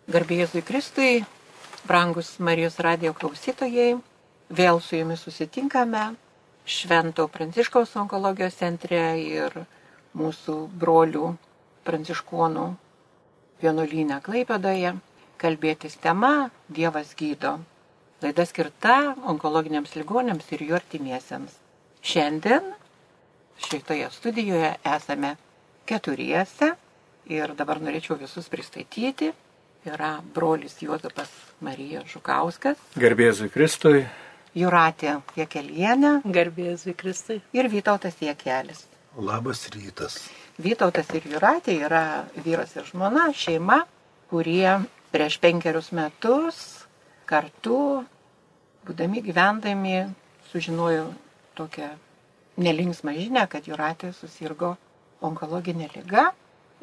Garbė Jėzui Kristui, brangus Marijos radijo klausytojai, vėl su jumis susitinkame Švento Pranciškaus onkologijos centre ir mūsų brolių pranciškonų vienuolyne Klaipėdoje. Kalbėtis tema Dievas gydo. Laida skirta onkologiniams ligonėms ir jų artimiesiems. Šiandien šitoje studijoje esame keturiese ir dabar norėčiau visus pristatyti. Yra brolis Juozapas Marija Žukauskas. Garbė Jėzui Kristui. Jūratė Jekelienė. Garbė Jėzui Kristui. Ir Vytautas Jekelis. Labas rytas. Vytautas ir Jūratė yra vyras ir žmona, šeima, kurie prieš 5 metus kartu, būdami gyvendami, sužinojo tokią nelinksmą žinią, kad Jūratė susirgo onkologinė liga.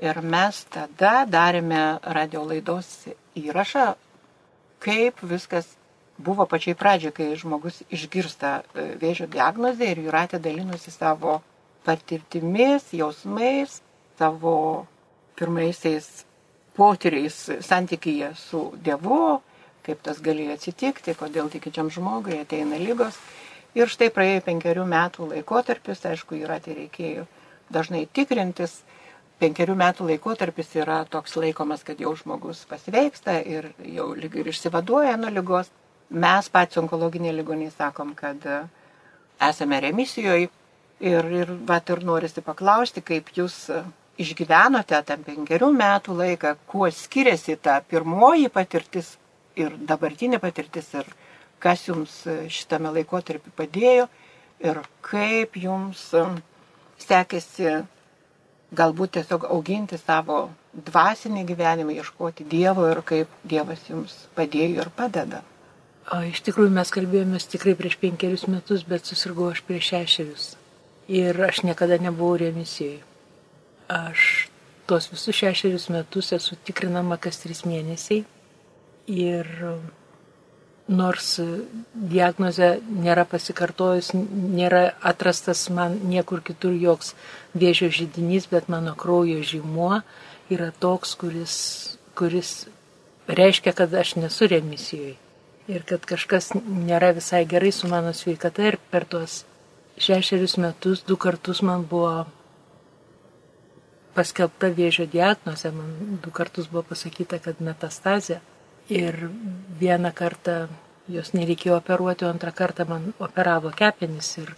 Ir mes tada darėme radio laidos įrašą, kaip viskas buvo pačiai pradžiai, kai žmogus išgirsta vėžio diagnozę ir Jūratė dalinosi savo patirtimis, jausmais, savo pirmaisiais potyriais santykyje su Dievu, kaip tas galėjo atsitikti, kodėl tikinčiam žmogui ateina ligos. Ir štai praėjo 5 metų laikotarpis, aišku, Jūratė reikėjo dažnai tikrintis. 5 metų laikotarpis yra toks laikomas, kad jau žmogus pasveiksta ir jau lyg ir išsivaduoja nuo ligos. Mes patys onkologiniai ligoniai sakom, kad esame remisijoje ir norisi paklausti, kaip jūs išgyvenote tą 5 metų laiką, kuo skiriasi ta pirmoji patirtis ir dabartinė patirtis ir kas jums šitame laikotarpį padėjo ir kaip jums sekėsi galbūt tiesiog auginti savo dvasinį gyvenimą, ieškoti Dievo ir kaip Dievas jums padėjo ir padeda. Iš tikrųjų mes kalbėjomės tikrai prieš 5 metus, bet susirgau aš prieš 6. Ir aš niekada nebuvau remisijoje. Aš tos visus 6 metus esu tikrinama kas 3 mėnesiai. Ir nors diagnozė nėra pasikartojus, nėra atrastas man niekur kitur joks vėžio židinys, bet mano kraujo žymuo yra toks, kuris reiškia, kad aš nesu remisijoje. Ir kad kažkas nėra visai gerai su mano sveikata. Ir per tuos 6 metus 2 kartus man buvo paskelbta vėžio diagnozė. Man 2 kartus buvo pasakyta, kad metastazė. Ir 1 kartą jos nereikėjo operuoti, o 2 kartą man operavo kepenis ir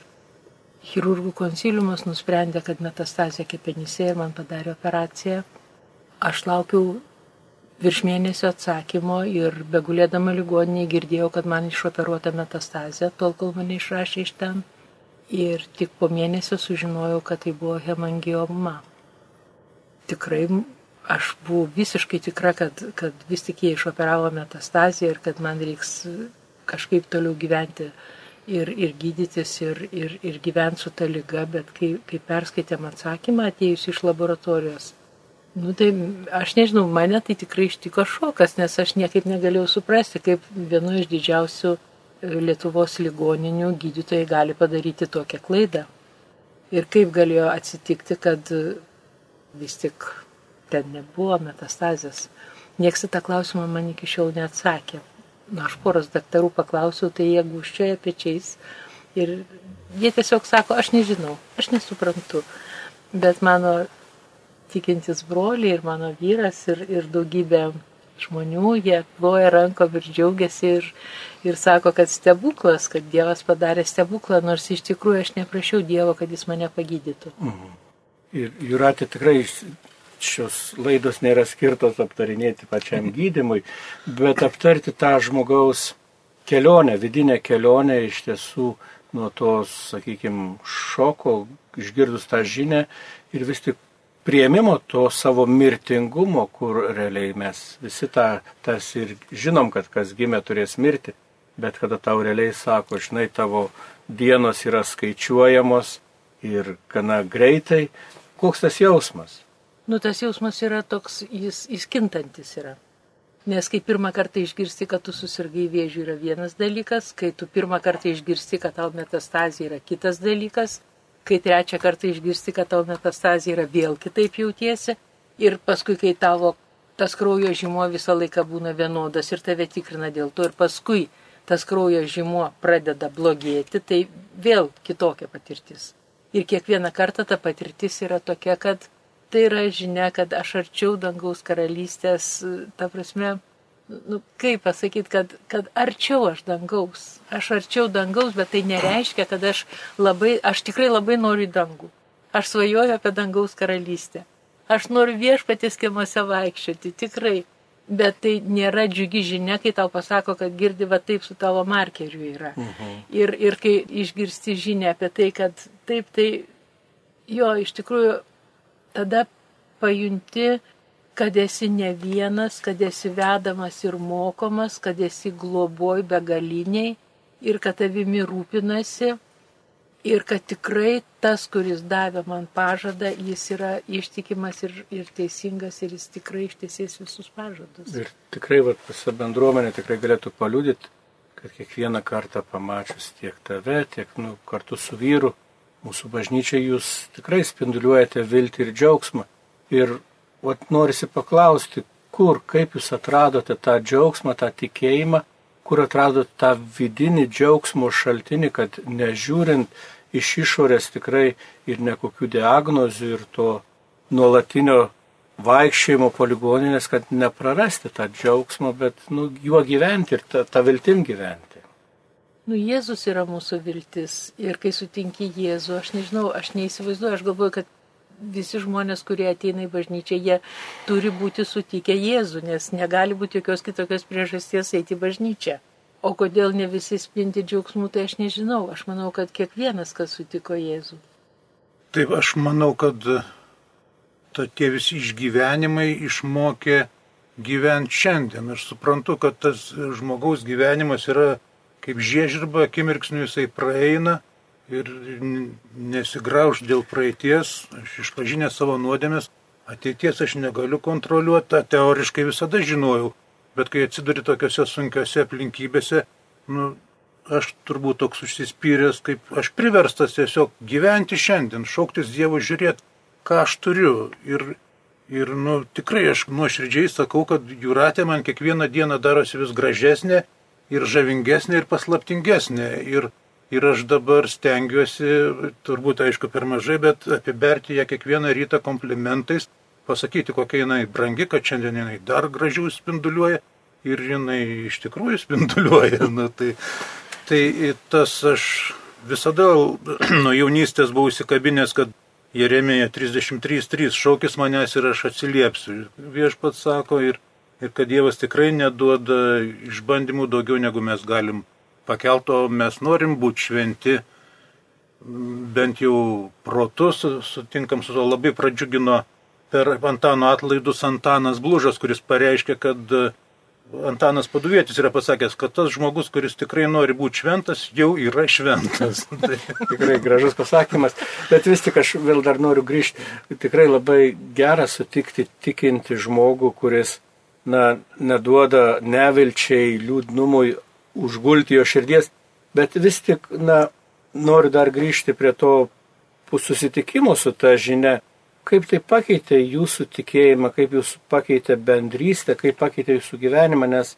chirurgų konsiliumas nusprendė, kad metastazė kepenyse ir man padarė operaciją. Aš laukiau virš mėnesio atsakymo ir begulėdama ligoninėje girdėjau, kad man išoperuota metastazė, tol kol mane išrašė iš ten. Ir tik po mėnesio sužinojau, kad tai buvo hemangioma. Tikrai aš buvau visiškai tikra, kad vis tik jie išoperavo metastaziją ir kad man reiks kažkaip toliau gyventi ir gydytis ir gyventi su ta liga, bet kai perskaitėm atsakymą atėjus iš laboratorijos, tai aš nežinau, mane tai tikrai ištiko šokas, nes aš niekaip negalėjau suprasti, kaip vienu iš didžiausių Lietuvos ligoninių gydytojai gali padaryti tokią klaidą. Ir kaip galėjo atsitikti, kad vis tik ten nebuvo metastazės. Niekas į tą klausimą man iki šiol neatsakė. Aš poros daktarų paklausiau, tai jie gūžčioja pečiais ir jie tiesiog sako, aš nežinau, aš nesuprantu. Bet mano tikintis broliai ir mano vyras ir daugybė žmonių, jie ploja rankom ir džiaugiasi ir sako, kad stebuklas, kad Dievas padarė stebuklą, nors iš tikrųjų aš neprašiau Dievo, kad jis mane pagydytų. Ir Jūratė tikrai šios laidos nėra skirtos aptarinėti pačiam gydymui, bet aptarti tą žmogaus kelionę, vidinę kelionę iš tiesų nuo tos, sakykime, šoko, išgirdus tą žinią ir vis tik priėmimo to savo mirtingumo, kur realiai mes visi tas ir žinom, kad kas gimė turės mirti, bet kada tau realiai sako, žinai, tavo dienos yra skaičiuojamos ir gana greitai, koks tas jausmas? Tas jausmas yra toks, jis kintantis yra. Nes kai pirmą kartą išgirsti, kad tu susirgai vėžiu, yra vienas dalykas, kai tu pirmą kartą išgirsti, kad tau metastazija yra kitas dalykas, kai trečią kartą išgirsti, kad tau metastazija yra vėl kitaip jautiesi, ir paskui, kai tavo tas kraujo žymuo visą laiką būna vienodas ir tave tikrina dėl to. Ir paskui tas kraujo žymuo pradeda blogėti, tai vėl kitokia patirtis. Ir kiekvieną kartą ta patirtis yra tokia, kad tai yra žinia, kad aš arčiau dangaus karalystės, ta prasme, kaip pasakyti, kad arčiau aš dangaus. Aš arčiau dangaus, bet tai nereiškia, kad aš tikrai labai noriu į dangų. Aš svajoju apie dangaus karalystę. Aš noriu Viešpaties kiemuose vaikščioti, tikrai. Bet tai nėra džiugi žinia, kai tau pasako, kad girdi va taip su tavo markeriu yra. Ir kai išgirsti žinią apie tai, kad taip, tai jo, iš tikrųjų, tada pajunti, kad esi ne vienas, kad esi vedamas ir mokomas, kad esi globoj begaliniai ir kad tavimi rūpinasi. Ir kad tikrai tas, kuris davė man pažadą, jis yra ištikimas ir teisingas ir jis tikrai ištesės visus pažadus. Ir tikrai visa bendruomenė tikrai galėtų paliudyti, kad kiekvieną kartą pamačius tiek tave, tiek kartu su vyru, mūsų bažnyčiai jūs tikrai spinduliuojate viltį ir džiaugsmą. Ir norisi paklausti, kaip jūs atradote tą džiaugsmą, tą tikėjimą, kur atradote tą vidinį džiaugsmo šaltinį, kad nežiūrint iš išorės tikrai ir nekokių diagnozių ir to nuolatinio vaikščiojimo po ligoninės, kad neprarasti tą džiaugsmą, bet juo gyventi ir tą viltim gyventi. Jėzus yra mūsų viltis ir kai sutinki Jėzų, aš nežinau, aš neįsivaizduoju, aš galvoju, kad visi žmonės, kurie ateina į bažnyčią, jie turi būti sutikę Jėzų, nes negali būti jokios kitokios priežasties eiti į bažnyčią. O kodėl ne visi spindi džiaugsmų, tai aš nežinau. Aš manau, kad kiekvienas, kas sutiko Jėzų. Taip, aš manau, kad tie visi išgyvenimai išmokė gyventi šiandien. Aš suprantu, kad tas žmogaus gyvenimas yra kaip žiežirba, akimirksniu jisai praeina ir nesigrauž dėl praeities. Aš išpažinęs savo nuodėmes, ateities aš negaliu kontroliuoti, tą teoriškai visada žinojau. Bet kai atsiduri tokiuose sunkiuose aplinkybėse, aš turbūt toks užsispyręs, kaip aš priverstas tiesiog gyventi šiandien, šauktis Dievo, žiūrėti, ką aš turiu. Ir tikrai aš nuoširdžiai sakau, kad Jūratė man kiekvieną dieną darosi vis gražesnė ir žavingesnė ir paslaptingesnė. Ir aš dabar stengiuosi, turbūt aišku per mažai, bet apiberti ją kiekvieną rytą komplimentais, pasakyti, kokia jinai brangi, kad šiandien jinai dar gražiau spinduliuoja ir jinai iš tikrųjų spinduliuoja. Tai tas aš visada nuo jaunystės buvau įsikabinęs, kad Jeremija 33:3 šaukis manęs ir aš atsiliepsiu. Viešpats sako ir kad Dievas tikrai neduoda išbandymų daugiau negu mes galim pakelti, o mes norim būti šventi, bent jau protus, sutinkam su to, labai pradžiugino per Antano atlaidus Antanas Blužas, kuris pareiškė, kad Antanas Paduvietis yra pasakęs, kad tas žmogus, kuris tikrai nori būti šventas, jau yra šventas. Tikrai gražus pasakymas, bet vis tik aš vėl dar noriu grįžti. Tikrai labai gera sutikti tikinti žmogų, kuris neduoda nevilčiai, liūdnumui užgulti jo širdies, bet vis tik noriu dar grįžti prie to susitikimo su ta žinia. Kaip tai pakeitė jūsų tikėjimą, kaip jūs pakeitė bendrystę, kaip pakeitė jūsų gyvenimą, nes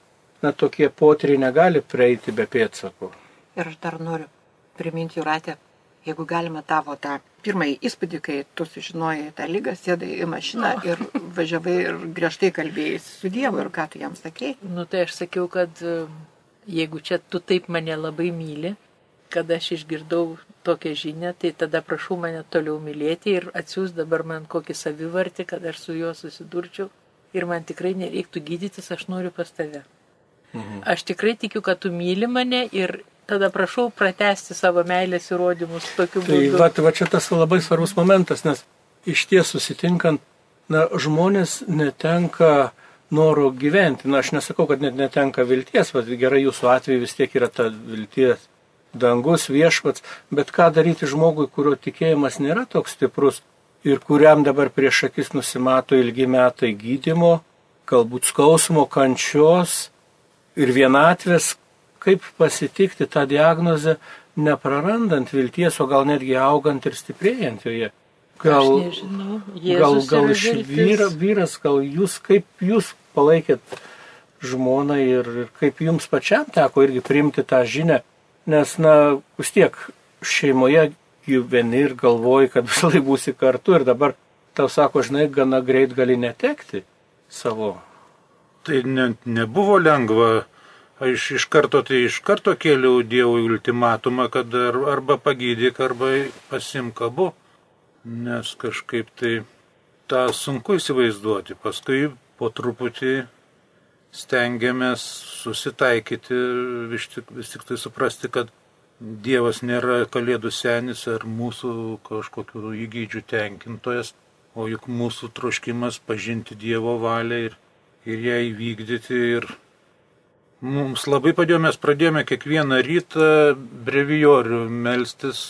tokie potyriai negali prieiti be pėdsakų. Ir aš dar noriu priminti, Jūratė, jeigu galima tavo tą pirmąjį įspūdį, kai tu sužinojai tą ligą, sėdai į mašiną ir važiavai ir griežtai kalbėjai su Dievu ir ką tu jam sakei. Tai aš sakiau, kad jeigu čia tu taip mane labai myli, kad aš išgirdau tokią žinią, tai tada prašau mane toliau mylėti ir atsiųs dabar man kokį savivartį, kad aš su juo susidurčiau ir man tikrai nereiktų gydytis, aš noriu pas tave. Aš tikrai tikiu, kad tu myli mane ir tada prašau pratęsti savo meilės įrodymus tokiu būdu. Tai va čia tas labai svarbus momentas, nes iš ties susitinkant, žmonės netenka noro gyventi. Aš nesakau, kad net netenka vilties, gerai jūsų atveju vis tiek yra ta vilties. Dangus, Viešpats, bet ką daryti žmogui, kurio tikėjimas nėra toks stiprus ir kuriam dabar prieš akis nusimato ilgi metai gydymo, galbūt skausmo, kančios ir vienatvės, kaip pasitikti tą diagnozę, neprarandant vilties, o gal netgi augant ir stiprėjant joje. Gal, Aš nežinau. Jėzus gal yra iš viltis. vyras, gal jūs, kaip jūs palaikėt žmoną ir kaip jums pačiam teko irgi priimti tą žinią, nes, vis tiek šeimoje gyveni ir galvoji, kad visą laiką būsi kartu ir dabar tau sako, žinai, gana greit gali netekti savo. Tai nebuvo lengva. Aš iš karto kėliau Dievui ultimatumą, kad arba pagydyk, arba pasimk abu. Nes kažkaip tai tą sunku įsivaizduoti. Paskui po truputį stengiamės susitaikyti, vis tik tai suprasti, kad Dievas nėra kalėdų senis ar mūsų kažkokių įgydžių tenkintojas, o juk mūsų troškimas pažinti Dievo valią ir ją įvykdyti. Ir mums labai padėjo, mes pradėjome kiekvieną rytą brevijorių melstis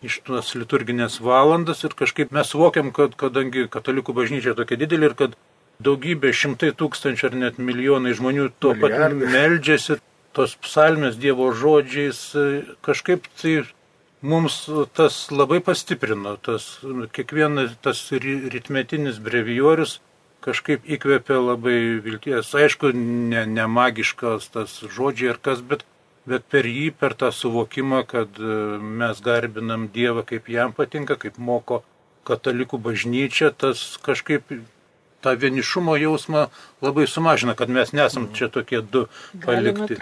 iš tos liturginės valandas ir kažkaip mes suvokiam, kad kadangi katalikų bažnyčia tokia didelė ir kad daugybė, šimtai tūkstančių ar net milijonai žmonių tuo pat meldžiasi, tos psalmės Dievo žodžiais, kažkaip tai mums tas labai pastiprino, kiekvienas tas ritmetinis brevijorius kažkaip įkvėpė labai vilties. Aišku, ne magiškas tas žodžiai ar kas, bet per jį, per tą suvokimą, kad mes garbinam Dievą, kaip jam patinka, kaip moko katalikų bažnyčia, tas kažkaip tą vienišumo jausmą labai sumažina, kad mes nesam čia tokie du palikti.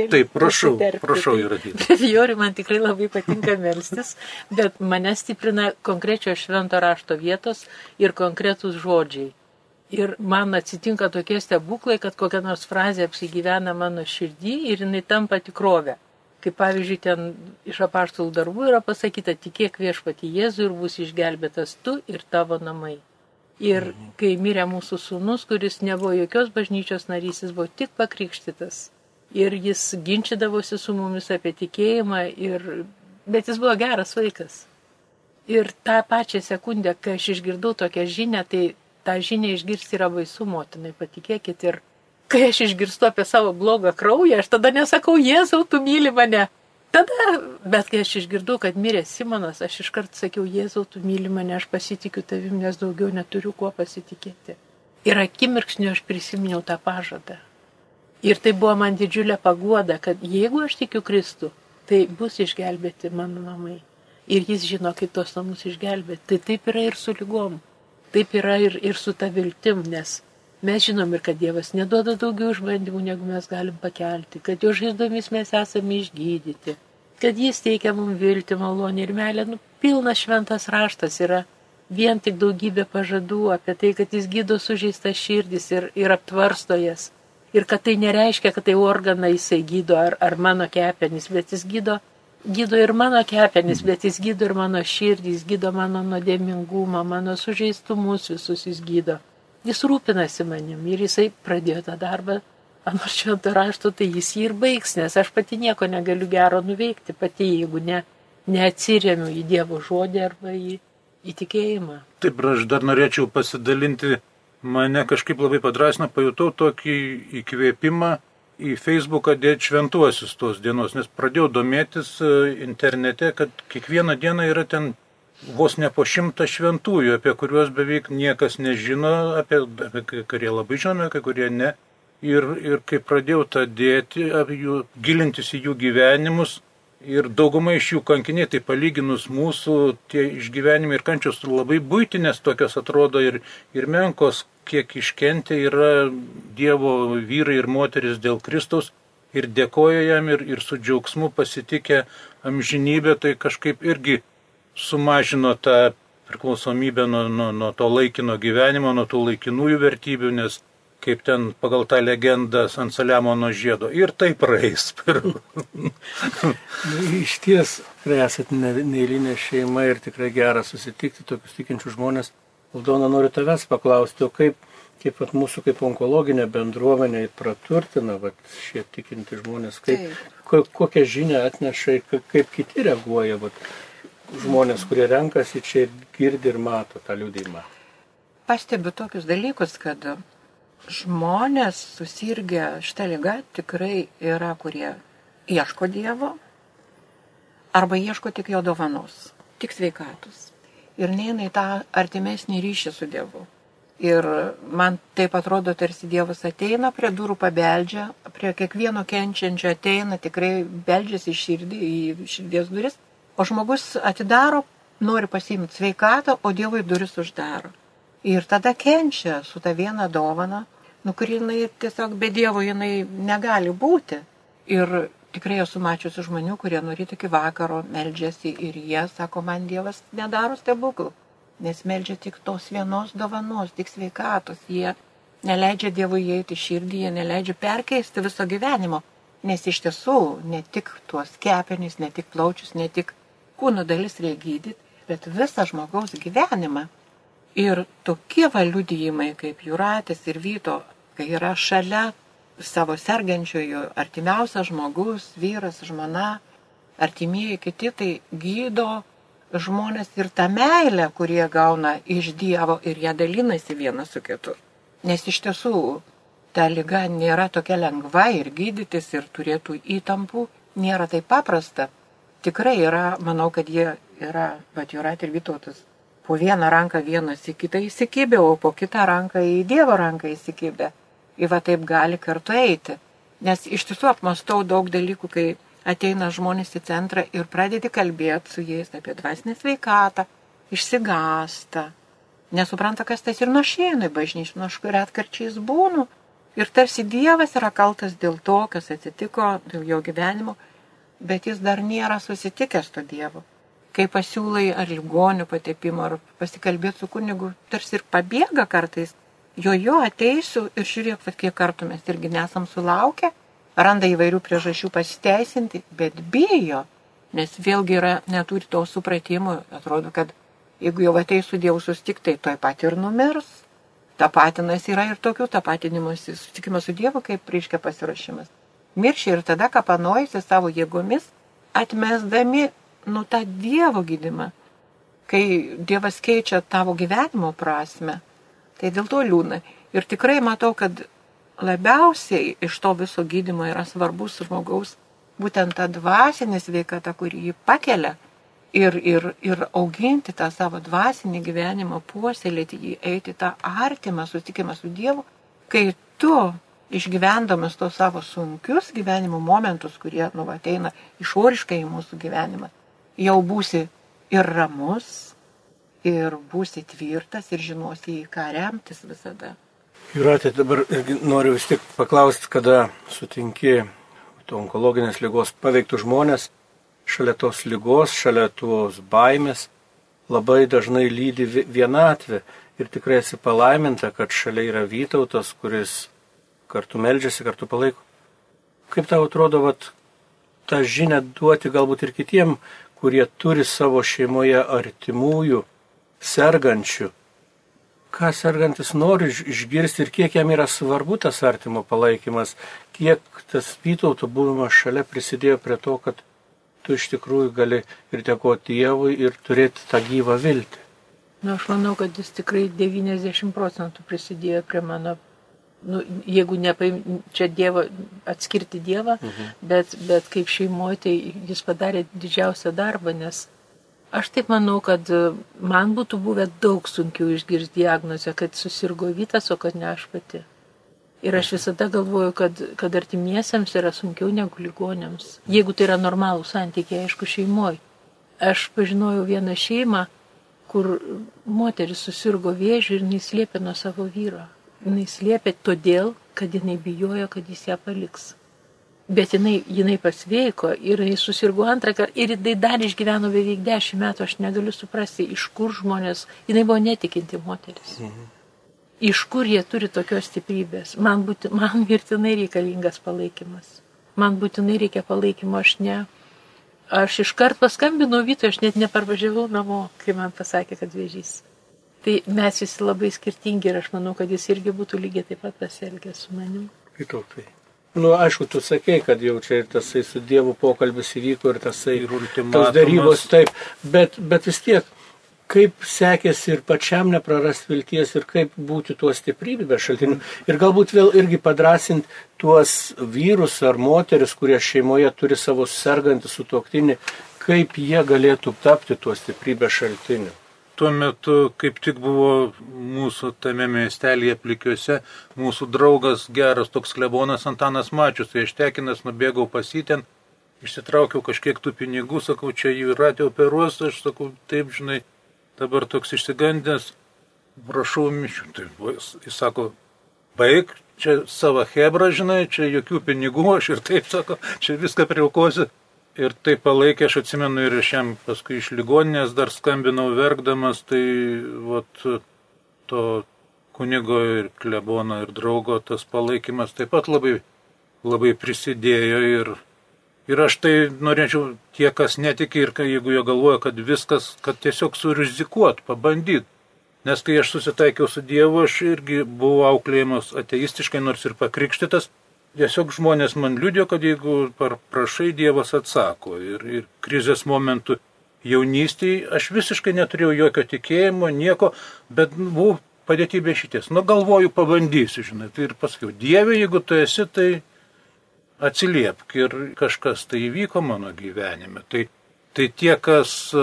Taip, prašau įradyti. Brevijorių man tikrai labai patinka melstis, bet mane stiprina konkrečios švento rašto vietos ir konkretūs žodžiai. Ir man atsitinka tokie stebuklai, kad kokia nors frazė apsigyvena mano širdį ir jinai tampa tikrovė. Kaip pavyzdžiui, ten iš apaštalų darbų yra pasakyta, tikėk viešpatį Jėzų ir bus išgelbėtas tu ir tavo namai. Ir kai mirė mūsų sūnus, kuris nebuvo jokios bažnyčios narys, jis buvo tik pakrikštytas. Ir jis ginčydavosi su mumis apie tikėjimą, bet jis buvo geras vaikas. Ir tą pačią sekundę, kai aš išgirdau tokią žinią, tai tą žinią išgirsti yra baisu, motinai, patikėkit. Ir kai aš išgirstu apie savo blogą kraują, aš tada nesakau, Jėzau, tu myli mane. Bet kai aš išgirdau, kad mirė Simonas, aš iškart sakiau, Jėzau, tu myli mane, aš pasitikiu tavim, nes daugiau neturiu kuo pasitikėti. Ir akimirksniu aš prisiminiau tą pažadą. Ir tai buvo man didžiulė paguoda, kad jeigu aš tikiu Kristų, tai bus išgelbėti mano namai. Ir jis žino, kaip tos namus išgelbėti. Tai taip yra ir su lygom. Taip yra ir su ta viltim, nes mes žinom ir kad Dievas neduoda daugiau išbandymų, negu mes galim pakelti, kad jo žaizdomis mes esame išgydyti, kad jis teikia mums viltį, malonę ir meilę. Pilnas šventas raštas yra vien tik daugybė pažadų apie tai, kad jis gydo sužeistas širdis ir aptvarsto jas. Ir kad tai nereiškia, kad tai organą jisai gydo ar mano kepenis, bet jis gydo ir mano kepenis, bet jis gydo ir mano širdį, jis gydo mano nuodėmingumą, mano sužeistumus visus jis gydo. Jis rūpinasi manim ir jisai pradėjo tą darbą, anot švento rašto, tai jis jį ir baigs, nes aš pati nieko negaliu gero nuveikti, pati jeigu neatsiremiu į Dievo žodį arba į tikėjimą. Taip, aš dar norėčiau pasidalinti, mane kažkaip labai padrasino, pajutau tokį įkvėpimą į Facebooką dėti šventuosius tos dienos, nes pradėjau domėtis internete, kad kiekvieną dieną yra ten vos ne po 100 šventųjų, apie kuriuos beveik niekas nežino, apie kurie labai žinome, kai kurie ne. Ir kai pradėjau tą dėti, gilintis į jų gyvenimus, ir dauguma iš jų kankiniai, tai palyginus mūsų tie išgyvenimai ir kančios labai buitinės tokios atrodo ir menkos, kiek iškentė yra Dievo vyrai ir moteris dėl Kristaus ir dėkoja jam ir su džiaugsmu pasitikė amžinybę, tai kažkaip irgi sumažino tą priklausomybę nuo to laikino gyvenimo, nuo tų laikinųjų vertybių, nes kaip ten pagal tą legendą ant Saliamono žiedo. Ir tai praeis. Iš ties, esat neeilinė šeima ir tikrai gera susitikti tokius tikinčius žmonės. Aldona, noriu tavęs paklausti, o kaip mūsų kaip onkologinė bendruomenė praturtina šie tikinti žmonės, kokią žinią atneša, kaip kiti reaguoja, žmonės, kurie renkasi čia ir girdi ir mato tą liudijimą. Pastebiu tokius dalykus, kad žmonės susirgę šitą ligą tikrai yra, kurie ieško Dievo arba ieško tik jo dovanos, tik sveikatos. ir neina į tą artimesnį ryšį su Dievu. Ir man taip atrodo, tarsi Dievas ateina prie durų, pabeldžia, prie kiekvieno kenčiančio ateina, tikrai beldžiasi į širdies duris, o žmogus atidaro, nori pasiimti sveikatą, o Dievui duris uždaro. Ir tada kenčia su ta viena dovana, kuri jinai tiesiog be Dievo jinai negali būti. Ir tikrai esu mačiusi žmonių, kurie nuo ryto iki vakaro meldžiasi ir jie sako, man Dievas nedaro stebuklų. Nes meldžia tik tos vienos dovanos, tik sveikatos. Jie neleidžia Dievui įeiti širdį, jie neleidžia perkeisti viso gyvenimo. Nes iš tiesų ne tik tuos kepenis, ne tik plaučius, ne tik kūno dalis reikia gydyti, bet visą žmogaus gyvenimą. Ir tokie liudijimai kaip Jūratės ir Vyto, kai yra šalia savo sergančiojo artimiausias žmogus, vyras, žmona, artimieji kiti, tai gydo žmonės ir tą meilę, kurie gauna iš Dievo ir ją dalinasi vienas su kitu. Nes iš tiesų ta liga nėra tokia lengva ir gydytis ir turėtų įtampų, nėra taip paprasta. Tikrai yra, manau, kad jie yra, bet Jūratė ir Vytautas, po vieną ranką vienas į kitą įsikibę, o po kitą ranką į Dievo ranką įsikibę. Ir va taip gali kartu eiti. Nes iš tiesų apmastau daug dalykų, kai ateina žmonės į centrą ir pradedi kalbėti su jais apie dvasinę sveikatą, išsigąsta, nesupranta, kas tas ir nuošėina į bažnyčią, aš retkarčiais būnu. Ir tarsi Dievas yra kaltas dėl to, kas atsitiko, dėl jo gyvenimo, bet jis dar nėra susitikęs to Dievo. Kai pasiūlai ar ligonių patepimo, ar pasikalbėti su kunigu, tarsi ir pabėga kartais. Jo ateisiu ir žiūrėk, kiek kartų mes irgi nesam sulaukę, randa įvairių priežasčių pasiteisinti, bet bijo, nes vėlgi neturi to supratimo, atrodo, kad jeigu jau ateis su Dievu susitikti, tai toj pat ir numirs. Tapatinas yra ir tokių tapatinimuose, susitikimas su Dievu kaip reiškia pasiruošimas. Miršia ir tada kapanojasi savo jėgomis, atmesdami tą Dievo gydymą. Kai Dievas keičia tavo gyvenimo prasme, tai dėl to liūdna. Ir tikrai matau, kad labiausiai iš to viso gydymo yra svarbus žmogaus būtent ta dvasinė sveikata, kuri jį pakelia ir auginti tą savo dvasinį gyvenimą, puoselėti jį, eiti tą artimą susitikimą su Dievu, kai tu išgyvendamas tos savo sunkius gyvenimo momentus, kurie ateina išoriškai į mūsų gyvenimą, jau būsi ir ramus, ir būsi tvirtas, ir žinosi, į ką remtis visada. Jūratė, dabar noriu vis tik paklausti, kada sutinki onkologinės ligos paveiktų žmonės, šalia tos ligos, šalia tos baimės, labai dažnai lydi vienatvė ir tikrai esi palaiminta, kad šalia yra Vytautas, kuris kartu meldžiasi, kartu palaiko. Kaip tau atrodo, tą žinią duoti galbūt ir kitiem, kurie turi savo šeimoje artimųjų, sergančių, ką sergantis nori išgirsti ir kiek jam yra svarbu tas artimo palaikymas, kiek tas Vytauto buvimas šalia prisidėjo prie to, kad tu iš tikrųjų gali ir dėkoti Dievui ir turėti tą gyvą viltį. Aš manau, kad jis tikrai 90% prisidėjo prie mano, jeigu čia Dievo, atskirti Dievą, bet kaip šeimoje, tai jis padarė didžiausią darbą, nes aš taip manau, kad man būtų buvę daug sunkiau išgirsti diagnozę, kad susirgo Vytas, o kad ne aš pati. Ir aš visada galvoju, kad artimiesiems yra sunkiau negu ligoniams. Jeigu tai yra normalų santykiai, aišku, šeimoje. Aš pažinojau vieną šeimą, kur moteris susirgo vėžiu ir jinai slėpė nuo savo vyro. Jinai slėpė todėl, kad jinai bijojo, kad jis ją paliks. Bet jinai pasveiko ir jinai susirgo antrą kartą ir jinai dar išgyveno beveik 10 metų, aš negaliu suprasti, iš kur žmonės, jinai buvo netikinti moteris. Iš kur jie turi tokios stiprybės. Man mirtinai reikalingas palaikymas. Man būtinai reikia palaikymo, aš iškart paskambinau Vytui, aš net neparvažiavau namo, kai man pasakė, kad vėžys. Tai mes visi labai skirtingi ir aš manau, kad jis irgi būtų lygiai taip pat pasielgęs su manim. Vytautai. Aišku, tu sakei, kad jau čia ir tasai su Dievu pokalbis įvyko ir tasai tos darybos, taip, bet vis tiek, kaip sekėsi ir pačiam neprarasti vilties ir kaip būti tuo stiprybės šaltiniu. Ir galbūt vėl irgi padrasinti tuos vyrus ar moteris, kurie šeimoje turi savo sergantį sutuoktinį, kaip jie galėtų tapti tuo stiprybės šaltiniu. tuo metu kaip tik buvo mūsų tame miestelėje Plikiuose, mūsų draugas geras toks klebonas Antanas Mačius, tai aš tekinas nubėgau pas jį ten, išsitraukiau kažkiek tų pinigų, sakau, čia Jūratė operuos, aš sakau, taip, žinai, dabar toks išsigandęs, prašau mišių. Tai jis sako, baig, čia savo hebra, žinai, čia jokių pinigų, aš ir taip sako, čia viską priaukosiu. Ir tai palaikė, aš atsimenu, ir aš jam paskui iš ligoninės dar skambinau verkdamas, tai vat, to kunigo ir klebono ir draugo tas palaikymas taip pat labai, labai prisidėjo. Ir aš tai norėčiau tie, kas netiki ir jeigu jie galvoja, kad viskas, kad tiesiog surizikuot, pabandyt. Nes kai aš susitaikiau su Dievu, aš irgi buvau auklėjimas ateistiškai, nors ir pakrikštytas. Tiesiog žmonės man liudėjo, kad jeigu prašai, Dievas atsako. Ir krizės momentų jaunystėje aš visiškai neturėjau jokio tikėjimo, nieko, bet buvau padėti be šities. Nu, galvoju, pabandysiu, žinai. Tai ir pasakiau, Dieve, jeigu tu esi, tai atsiliepk. Ir kažkas tai įvyko mano gyvenime. Tai tie, kas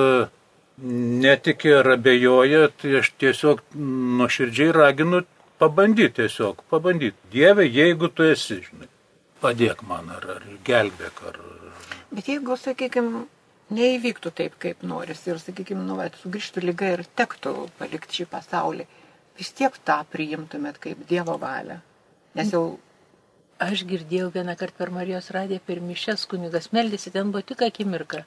netikė ar abejoja, tai aš tiesiog nuoširdžiai raginu pabandyti tiesiog, pabandyti. Dieve, jeigu tu esi, žinai, padėk man ar gelbėk. Bet jeigu, sakykime, neįvyktų taip, kaip noris ir, sakykime, sugrįžtų liga ir tektų palikti šį pasaulį, vis tiek tą priimtumėt kaip Dievo valią. Nes jau... Aš girdėjau vieną kartą per Marijos radiją, per mišias kunigas meldėsi, ten buvo tik akimirka.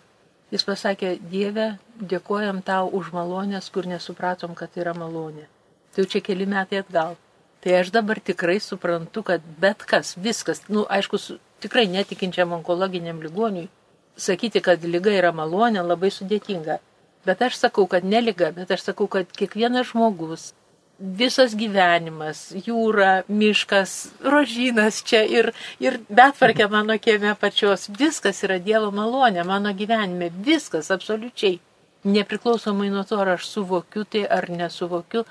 Jis pasakė, Dieve, dėkojam tau už malonės, kur nesupratom, kad tai yra malonė. Tai jau čia keli metai atgal. Tai aš dabar tikrai suprantu, kad bet kas, viskas, aišku, tikrai netikinčiam onkologiniam ligoniui, sakyti, kad liga yra malonė, labai sudėtinga. Bet aš sakau, kad ne liga, bet aš sakau, kad kiekvienas žmogus, visas gyvenimas, jūra, miškas, rožynas čia ir betvarkė mano kieme pačios, viskas yra Dievo malonė mano gyvenime, viskas absoliučiai. Nepriklausomai nuo to, ar aš suvokiu tai ar nesuvokiu,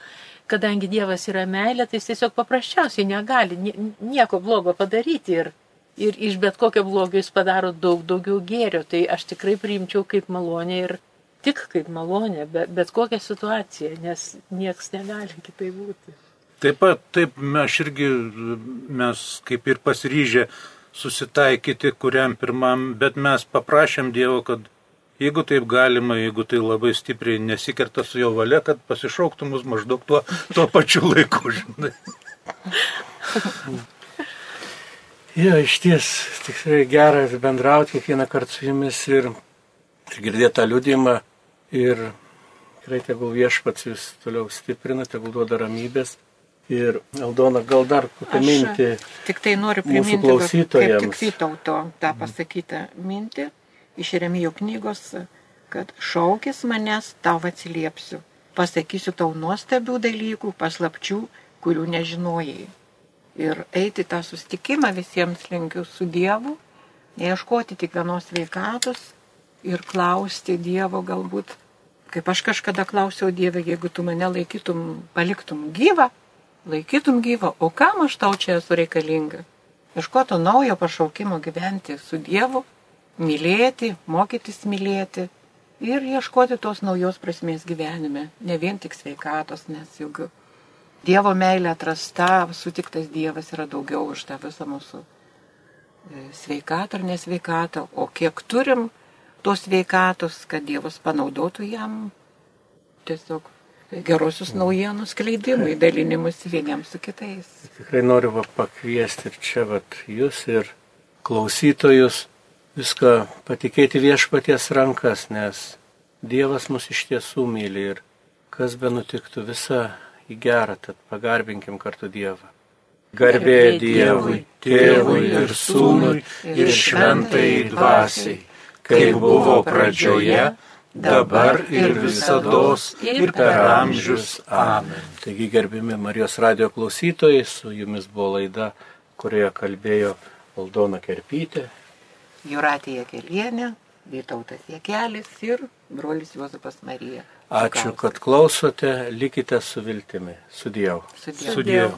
kadangi Dievas yra meilė, tai jis tiesiog paprasčiausiai negali nieko blogo padaryti ir iš bet kokio blogio jis padaro daug daugiau gėrio. Tai aš tikrai priimčiau kaip malonę ir tik kaip malonę, bet kokią situaciją, nes nieks negali kitaip būti. Taip pat, taip, mes kaip ir pasiryžę susitaikyti kuriam pirmam, bet mes paprašėm Dievo, kad jeigu taip galima, jeigu tai labai stipriai nesikerta su jo valia, kad pasišauktų mus maždaug tuo pačiu laiku, žinai. Jo, išties, tikrai gera bendrauti kiekvieną kartą su jumis ir girdėti tą liudijimą ir tikrai tegul Viešpats jūs toliau stiprina, tegul duoda ramybės. Ir Aldona, gal dar kokią mintį tik tai noriu priminti, mūsų klausytojams. Kaip tik Vytauto tą pasakytą mintį iš Jeremijo knygos, kad šaukis manęs, tau atsiliepsiu. Pasakysiu tau nuostabių dalykų, paslapčių, kurių nežinojai. Ir eiti tą susitikimą visiems linkiu su Dievu, neieškoti tik vienos sveikatos ir klausti Dievo galbūt, kaip aš kažkada klausiau Dievę, jeigu tu mane paliktum gyvą, o kam aš tau čia esu reikalinga? Ieškoto naujo pašaukimo gyventi su Dievu, mylėti, mokytis mylėti ir ieškoti tos naujos prasmės gyvenime, ne vien tik sveikatos, nes juk Dievo meilė atrasta, sutiktas Dievas yra daugiau už tą visą mūsų sveikatą ar nesveikatą, o kiek turim tos sveikatos, kad Dievas panaudotų jam tiesiog gerosios naujienų skleidimui, dalinimus vieniems su kitais. Tikrai noriu pakviesti ir čia jūs ir klausytojus viską patikėti Viešpaties rankas, nes Dievas mus iš tiesų myli ir kas be nutiktų visa į gerą, tad pagarbinkim kartu Dievą. Garbė Dievui, Tėvui ir Sūnui ir Šventajai Dvasiai, kaip buvo pradžioje, dabar ir visados ir per amžius. Amen. Taigi, gerbimi Marijos radijo klausytojai, su jumis buvo laida, kurioje kalbėjo Aldona Kerpytė, Jūratė Jakelienė, Vytautas Jakelis ir brolis Juozapas Marija. Ačiū, kad klausote, likite su viltimi. Su Dievu. Su Dievu.